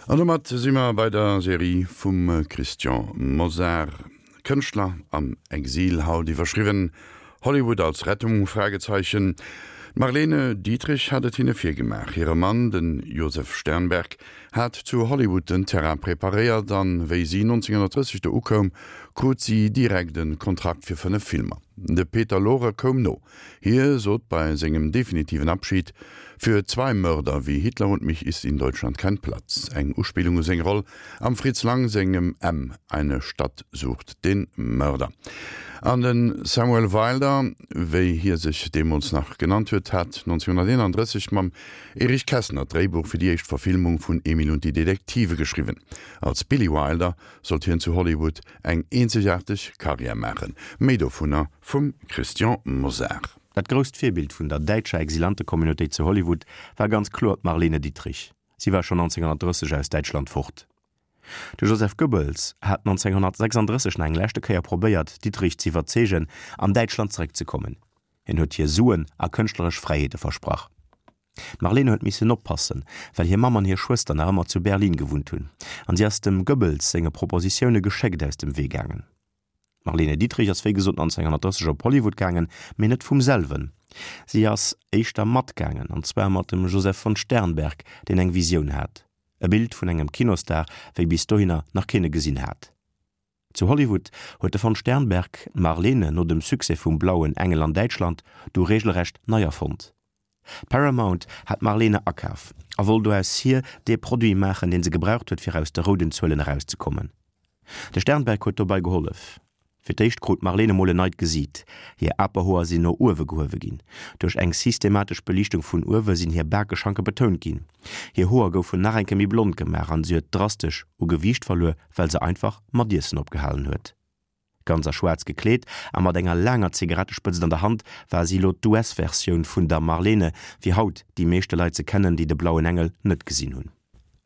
An domat si mer bei der Serie vum Christian Mosar, Kënschtler am Exil, haut iwwerschriwwen Hollywood als Rettung? Fragezeichen. D'Marlene Dietrich hat et hinne virgemaach. Hire Mann, de Josef Sternberg, hat zu Hollywood den Terrain preparéiert an wéi si 1930 do ukoum, krut si direkt e Kontrakt fir 5 Filmer. De Peter Lorre koum no. Hie sot bei sengem definitiven Abschied, Für zwei Mörder wie Hitler und mich ist in Deutschland kein Platz. Eng Uspillung u seng Roll am Fritz Lang sengem M, Eine Stadt sucht den Mörder. An de Samuel Wilder, wéi hie sech deemools nach genannt huet, hat 1931 mam Erich Kästner d'Dréibuch fir déi éischt Verfilmung vun Emil und die Detektive geschriwwen. Als Billy Wilder sollt hien zu Hollywood eng eenzegaarteg Karriär maachen. Méi dovunner vum Christian Mosar. Dat grousst Virbild vun der däitscher Exilantekommunautéit zu Hollywood war ganz kloer d'Marlene Dietrich. Si war schonn 1930 aus Däitschland fort. De Joseph Goebbels hat 1936 nach eng leschte Kéier probéiert, d'Dietrich z'iwwerzeegen, an Däitschland zeréckzekommen. Hien huet hir Suen a kënschtleresch Fräiheete versprach. D'Marlene huet missen oppassen, well hir Mamm an hir Schwëster nach ëmmer zu Berlin gewunnt hunn, an si ass dem Goebbels senge Propositioune geschéckt aus dem Wee gaangen. D'Marlene Dietrich ass wéi gesot 1930 op Hollywood gaangen, mee net vum selwen. Si ass éischter matgaangen, an zwar mat dem Josef von Sternberg, deen eng Visioun hat, e Bild vun engem Kinostar, wéi bis dohinner nach keen e gesinn hat. Zu Hollywood huet de von Sternberg d'Marlene no dem Succès vum Blauen Engel an Däitschland du regelrecht nei erfonnt. Paramount hat d'Marlene akaf a wollt do aus hir dee Produit maachen, dee se gebraucht huet, fir aus de rouden Zuelen erauszekommen. De Sternberg huet dobei gehollef. Fir d'éischt krut d'Marlene mol en neit Gesiit, hir Aperhoer sinn no uewe gehuewe ginn, duerch eng systematesch Beliichtung vun uewe sinn hir Bakeschanke betount ginn, hir Hoer goufen nach eng Kéier méi blond gemaach an si huet drastesch u Gewiicht verluer, well se einfach mat Iessen opgehalen huet. Ganz a schwaarz gekleet a mat enger laanger Zigarettespëtzt an der Hand war si elo d'US-Versioun vun der Marlene, wéi haut déi meeschte Leit se kennen, déi de Blauen Engel net gesinn hunn.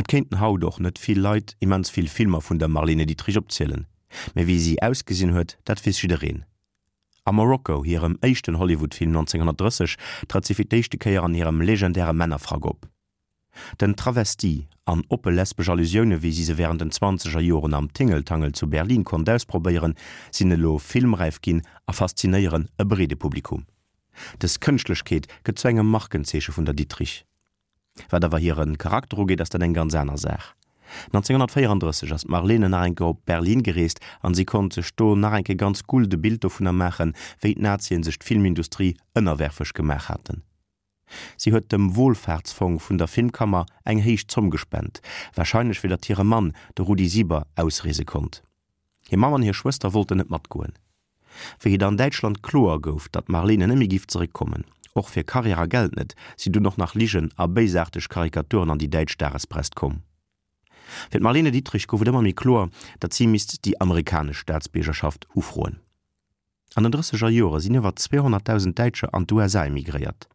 Et kéinten haut och net vill Leit immens vill Filmer vun der Marlene Dietrich opzielen, mä wéi si ausgesinn huet, dat weess jiddereen. A Morocco, hirem éischten Hollywood-Film 1930, trëtt si fir d'éischte Kéier an hirem legendäre Männerfrack op. Den Travestie an oppe lesbesch Allusioune wéi si se wärend den zwanzeger Joren am Tingeltangel zu Berlin konnt ausprobéieren, sinn elo filmräif ginn a faszinéieren e breede Publikum. Dës Kënschtlechkeet gëtt zu engem Markenzeeche vun der Dietrich. Wat awer hire Charakter ugeet, ass dat eng ganz aner Saach. 1934 ass d'Marlene nach eng Kéier op Berlin gereest an si konnt sech do nach eng Kéier ganz guld e Bild dovunner maachen, wéi d'Nazien sech d'Filmindustrie ënnerwerfeg gemaach haten. Si huet dem Wohlfahrtsfong vun der Filmkammer eng héich Zomm gespent, warscheinlech fir datt hire Mann, de Rudi Sieber, ausreese konnt. Hir Mamm an hir Schwëster wollten net matgoen. Wéi et an Däitschland kloer gouf, datt d'Marlene net méi giff zeréckkommen, och fir Karriär a Geld net, sinn dunn och nach Ligen a béisaarteg Karikaturen an déi däitsch Dagespress komm. Fir d'Marlene Dietrich gouf et ëmmer méi kloer, datt si misst déi amerikanesch Staatsbiergerschaft ufroen. An den drësseger Jore sinn iwwer 200.000 Däitscher an d'USA emigréiert.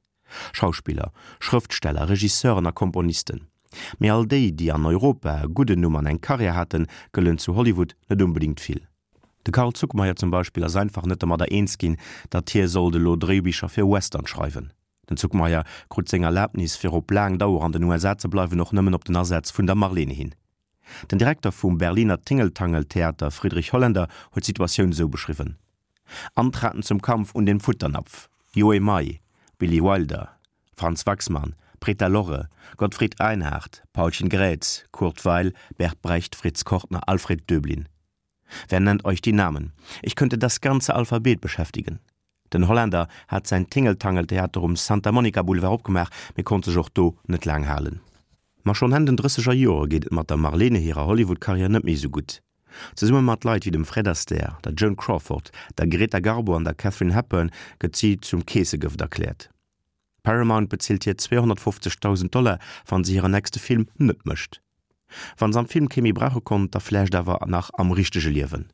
Schauspiller, Schrëftsteller, Regisseuren a Komponisten. Mee all déi, déi an Europa e gudden Numm an eng Karriär haten, gëllen zu Hollywood net onbedéngt vill. De Carl Zuckmayer zum Beispill ass einfach net domadder eens ginn, datt hie sollt elo Dréibicher fir Western schreiwen. Den Zuckmayer krut seng Erlabnis, fir op laang Dauer an den USA ze bleiwen, och nëmmen op den Asaz vun der Marlene hin. Den Direkter vum Berliner Tingeltangel-Theater Friedrich Holländer huet d'Situatioun esou beschriwwen, Antraten zum Kampf un den Futternapf, Joe May, Billy Wilder, Franz Waxman, Preta Lorre, Gottfried Einhard, Paulchen Grätz, Kurt Weill, Bert Brecht, Fritz Kortner, Alfred Döblin. Wer nennt euch die Namen? Ich könnte das ganze Alphabet beschäftigen. Den Holländer hat säin Tingeltangel-Theater um Santa Monica Boulevard opgemaach, mee konnt sech och do net laang halen. Ma schonn Enn den drësseger Jore geet et mat der Marlene hirer Hollywood-Karriär net méi esou gutt. Zesumme mat Leit wéi dem Fred Astaire, der Joan Crawford, der Greta Garbo an der Katharine Hepburn gëtt si zum Keessegëft erkläert. Paramount bezilt hir 250.000 Dollar, wann se hiren nächste Film net mécht. Wann se am Film kee méi brauche konnt, da vläicht awer nach am richtege Liewen.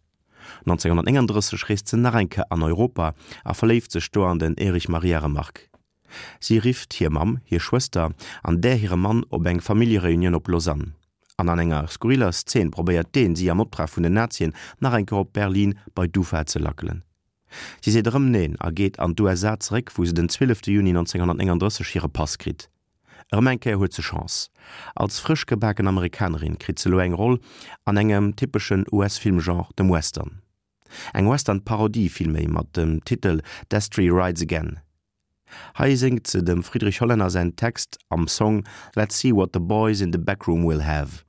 1939 reest se nach eng Kéier an Europa a verléift sech do an den Erich Maria Remarque. Si rifft hir Mamm, hir Schwëster an där hire Mann op eng Familljereunioun op Lausanne. An an enger skurriller Szen probéiert deen, si am Optrag vun den Nazien nach eng Kéier op Berlin bei d'UFA ze lackelen. Si seet erëm Neen a geet an d'USA zeréck, wou se den 12 Juni 1939 hire Pass kritt. Erëm eng Kéier huet se Chance. Als frësch gebaken Amerikanerin kritt se elo eng Roll an engem typeschen US-Filmgenre, dem Western. Eng Western-Parodie villméi mat dem Titel Destry Rides Again. Hei séngt se dem Friedrich Hollänner säin Text am Song Let's see what the boys in the back room will have.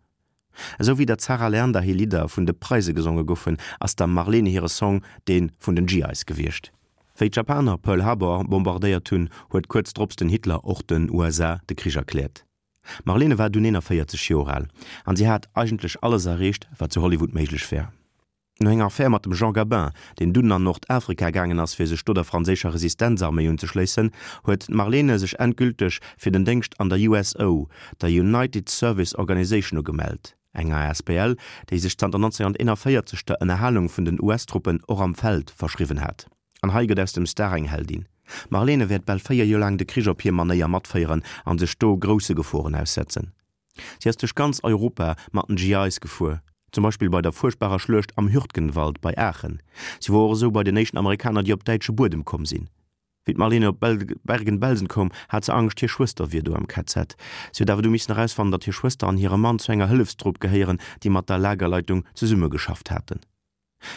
Esou wéi der Zarah Leander hir Lidder vun de Preise gesonge goufen, ass der Marlene hire Song dee vun den GIs gewiescht. Wéi d'Japaner Pearl Harbor bombardéiert hunn, huet kuerz drops den Hitler och den USA de Krich erkläert. D'Marlene war dunn 41 Joer al an si hat eigentlech alles erreecht, wat zu Hollywood méiglech war. No enger Affär mat dem Jean Gabin, deen dunn an Nordafrika gaangen ass, fir sech do der franséischer Resistenzarméi unzeschléissen, huet d'Marlene sech endgülteg fir den Déngscht an der USO, der United Service Organization, ugemellt, eng asbl, déi sech zanter 1941 der Ënnerhalung vun den US-Truppen och am Feld verschriwwen hat. An hei gëtt aus dem Star eng Heldin. D'Marlene wäert bal 4 Joer laang de Krich op hir Manéier matféieren an sech do grousse Geforen aussetzen. Si ass duerch ganz Europa mat den GIs gefuer, zum Beispill bei der fuerchtbarer Schluecht am Hürtgenwald bei Aachen. Si wor och esou bei den éischten Amerikaner, déi op däitsche Buedem komm sinn. Wéi d'Marlene op Bergen-Belsen koum, hat se Angscht, hir Schwëster wier do am KZ. Si huet awer du missen erausfannen, datt hir Schwëster an hire Mann zu enger Hëllefstrupp gehéieren, déi mat der Lagerleitung zesummegeschafft haten.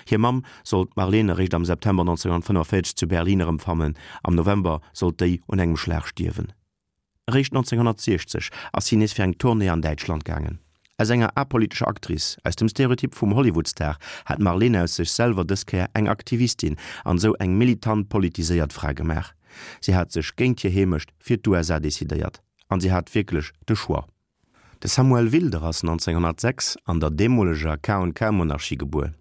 Hir Mamm sollt d'Marlene eréischt am September 1945 zu Berlin erëmfannen, am November sollt déi un engem Schlag stierwen. Eréischt 1960 ass si nees fir eng Tournée an Däitschland gaangen. Aus enger apolitescher Actrice, aus dem Stereotyp vum Hollywood-Star, hat d'Marlene aus sech selwer dës Kéier eng Aktivistin an esou eng militant politiséiert Fra gemaach. Si hat sech géint hir Heemecht fir d'USA decidéiert. An si hat wierklech de Choix. De Samuel Wilder ass 1906 an der deemoleger K&K-Monarchie gebuer.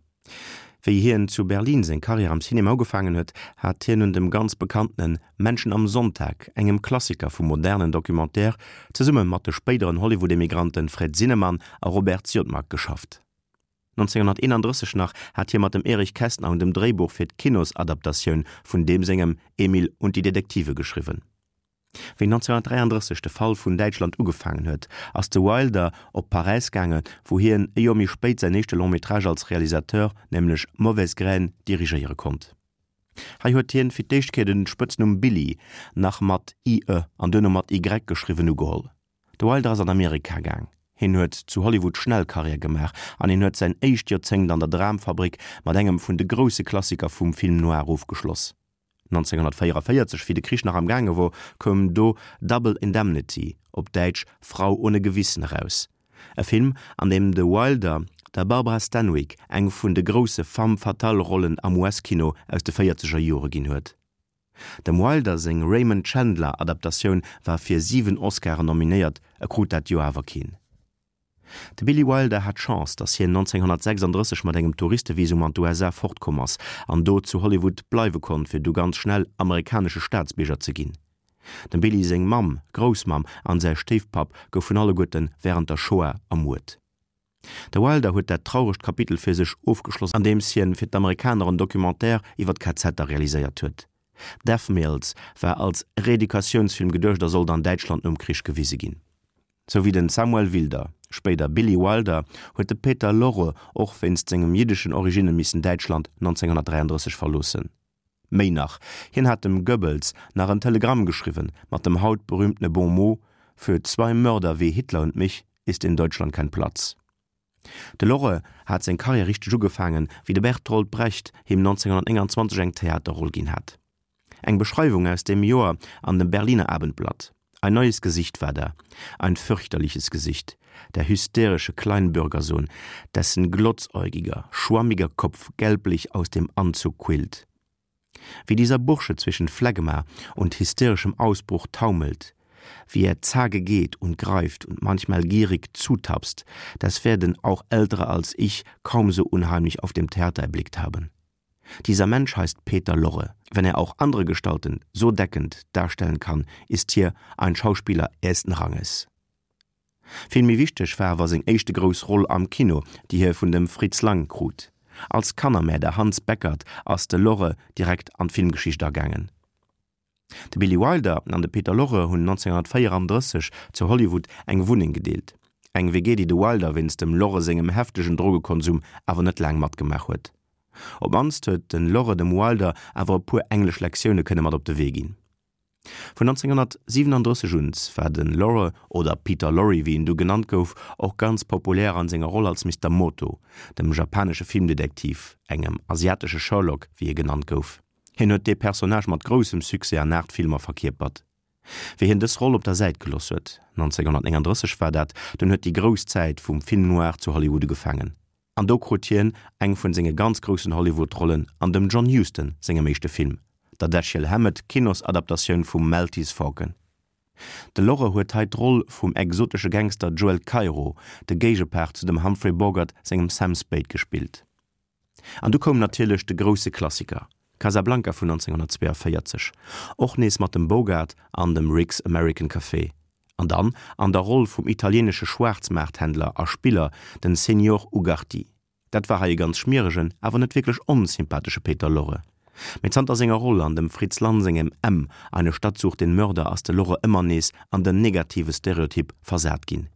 Wéi hien zu Berlin seng Karriär am Cinema ugefaangen huet, hat hien un dem ganz bekanntene Menschen am Sonntag, engem Klassiker vum modernen Documentaire, zesumme mat de spéideren Hollywood-Emigranten Fred Zinnemann a Robert Siodmak geschafft. 1931 nach hat hie mat dem Erich Kästner un dem Dréibuch fir d'Kinosadaptatioun vun deem sengem Emil und die Detektive geschriwwen. Wéi 1933 de Fall vun Däitschland ugefaangen huet, ass de Wilder op Paräis gaange wou hien e Joer méi spéit säin éischte Long-métrage als Realisateur, nämlech Mauvaise Graine, dirigéiere konnt. Hei huet hien fir d'éischt Kéier den Spëtznumm Billy, nach mat ie an duerno mat y geschriwwen, ugeholl. De Wilder ass an Amerika gaang. Hien huet zu Hollywood schnell Karriär gemaach an hien huet säin éischt Joerzéngt an der Dramfabrik mat engem vun de grousse Klassiker vum Film noir ofgeschloss. 1944, wéi de Krich nach am gaange wor, koum do Double Indemnity, op Däitsch Frau ohne Gewissen, eraus. E Film, an deem de Wilder der Barbara Stanwyck eng vun de grousse Femme-fatale-Rollen am US-Kino aus de véierzeger Jore ginn huet. Dem Wilder seng Raymond Chandler-Adaptatioun war fir 7 Oscaren nominéiert, e krut dat Joer awer keen. De Billy Wilder hat Chance, datt hien 1936 mat engem Touristevisum an d'USA fortkomm ass an do zu Hollywood bleiwe konnt, fir du ganz schnell amerikanesche Staatsbierger ze ginn. Dem Billy seng Mamm, Groussmamm an säi Stéifpapp goufen alleguerte wärend der Shoah ermuert. De Wilder huet dat trauregt Kapitel fir sech ofgeschloss andeems hien fir d'Amerikaner en Documentaire iwwer d'KZer realiséiert huet. Death Mills war als Reeducatiounsfilm geduecht a sollt an Däitschland nom Krich gewise ginn. Sou wéi den Samuel Wilder, spéider Billy Wilder, huet de Peter Lorre och wéinst sengem jiddeschen Originne missen Däitschland 1933 verloossen. Méi nach, hien hat dem Goebbels nach en Telegramm geschriwwen mat dem haut berühmtene Bon mot, Für zwei Mörder wie Hitler und mich ist in Deutschland kein Platz. De Lorre hat seng Karriär richteg ugefaangen, wéi de Bertolt Brecht him 1929 eng Theaterroll ginn hat. Eng Beschreiwung aus deem Joer an dem Berliner Abendblatt, Ein neues Gesicht war da, ein fürchterliches Gesicht, der hysterische Kleinbürgersohn, dessen glotzäugiger, schwammiger Kopf gelblich aus dem Anzug quillt. Wie dieser Bursche zwischen Phlegma und hysterischem Ausbruch taumelt, wie er zage geht und greift und manchmal gierig zutapst, das werden auch Ältere als ich kaum so unheimlich auf dem Theater erblickt haben. Dieser Mensch heißt Peter Lorre. Wenn er auch andere Gestalten so deckend darstellen kann, ist hier ein Schauspieler ersten Ranges. Vill méi wichteg war awer seng éischte grouss Roll am Kino, déi hie vun dem Fritz Lang krut. Als Kannermäerder Hans Beckert ass de Lorre direkt an d'Filmgeschicht agaangen. De Billy Wilder an de Peter Lorre hunn 1934 zu Hollywood eng Wunneng gedeelt. Eng WG, déi de Wilder wéinst dem Lorre sengem heftegen Drogekonsum awer net laang matgemaach huet. Op d'mannst huet de Lorre dem Wilder awer e puer englesch Lektioune kënne mat op de Wee ginn. Vun 1937 un war de Lorre, oder Peter Lorre wéi en du genannt gouf, och ganz populär an senger Roll als Mister Moto, dem japanesche Filmdetektiv, engem asiatesche Sherlock wéi e genannt gouf. Hien huet dee Personnage mat groussem Succès an 8 Filmer verkierpert. Wéi hien dës Roll op der Säit geloss huet, 1939 war dat, dunn huet déi grouss Zäit vum Film noir zu Hollywood ugefaangen. An do krut hien eng vun senge ganz groussen Hollywood-Rollen an dem John Huston sengem éischte Film, der Dashiell Hammett Kinosadaptatioun vum Maltese Falcon. De Lorre huet hei d'Roll vum exotesche Gangster Joel Cairo, de Géigepart zu dem Humphrey Bogart sengem Sam Spade gespillt. An du koum natierlech de grousse Klassiker, Casablanca vun 1942, och nees mat dem Bogart an dem Rick's American Café, an dann an der Roll vum italieenesche Schwaarzmaarthändler a Spiller, den Señor Ugarti. Dat war hei e ganz schmieregen, awer net wierklech onsympathesche Peter Lorre. Mee zanter senger Roll an dem Fritz Lann sengem M, Eine Stadt sucht den Mörder ass de Lorre ëmmer nees an den negative Stereotyp versat ginn.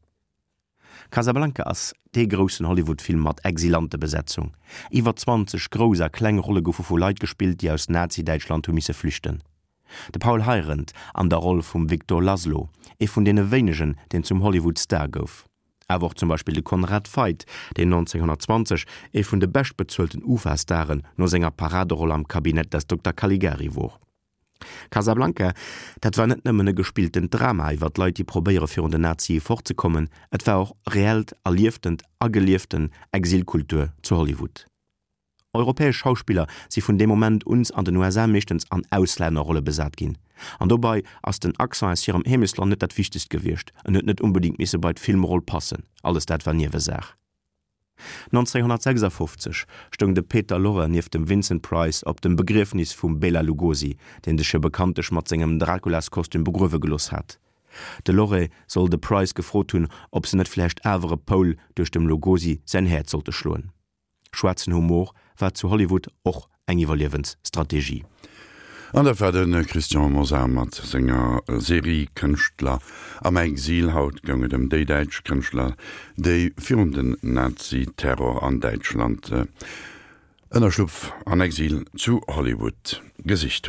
Casablanca ass dee groussen Hollywood-Film mat Exilantebesetzung. Iwwer 20 grouss a kleng Rolle goufe vu Leit gespillt, déi aus Nazi-Däitschland hu misse flüchten. De Paul Heirendt an der Roll vum Victor Laszlo, ee vun deene wéinegen, deen zum Hollywood-Star gouf. Awer och zum Beispill de Conrad Veidt, deen 1920 ee vun de beschtbezuelten UFA-Staren no senger Paraderoll am Cabinet des Dokter Caligari wor. Casablanca, dat war net nëmmen e gespilltent Drama iwwer Leit, déi probéiere virun den Nazie fortzekommen, et war och reellt erlieftent a gelieften Exilkultur zu Hollywood. Europäesch Schauspiller si vun deem Moment uns an den USA meeschtens an Auslännerrolle besat ginn. An dobei ass den Accent aus hirem Heemechtsland net dat Wichtegst gewiescht, en huet net unbedingt misse bei d'Filmroll passen, alles dat war Niewesaach. 1956 stoung de Peter Lorre nieft dem Vincent Price op dem Begriefnis vum Bela Lugosi, deen sech jo bekanntlech mat sengem Draculaskostüm begruewe gelooss hat. De Lorre soll de Price gefrot hunn, ob se net vläicht awer e Poul duerch dem Lugosi säin Häerz sollte schloen. Schwaarzen Humor war zu Hollywood och eng Iwwerliewensstrategie. An dat war de Christian Mosar mat senger Serie Kënschtler am Exil. Haut goung et ëm déi däitsch Kënschtler, déi virun den Nazi-Terror an Däitschland Ënnerschlupf an Exil zu Hollywood gesicht hunn.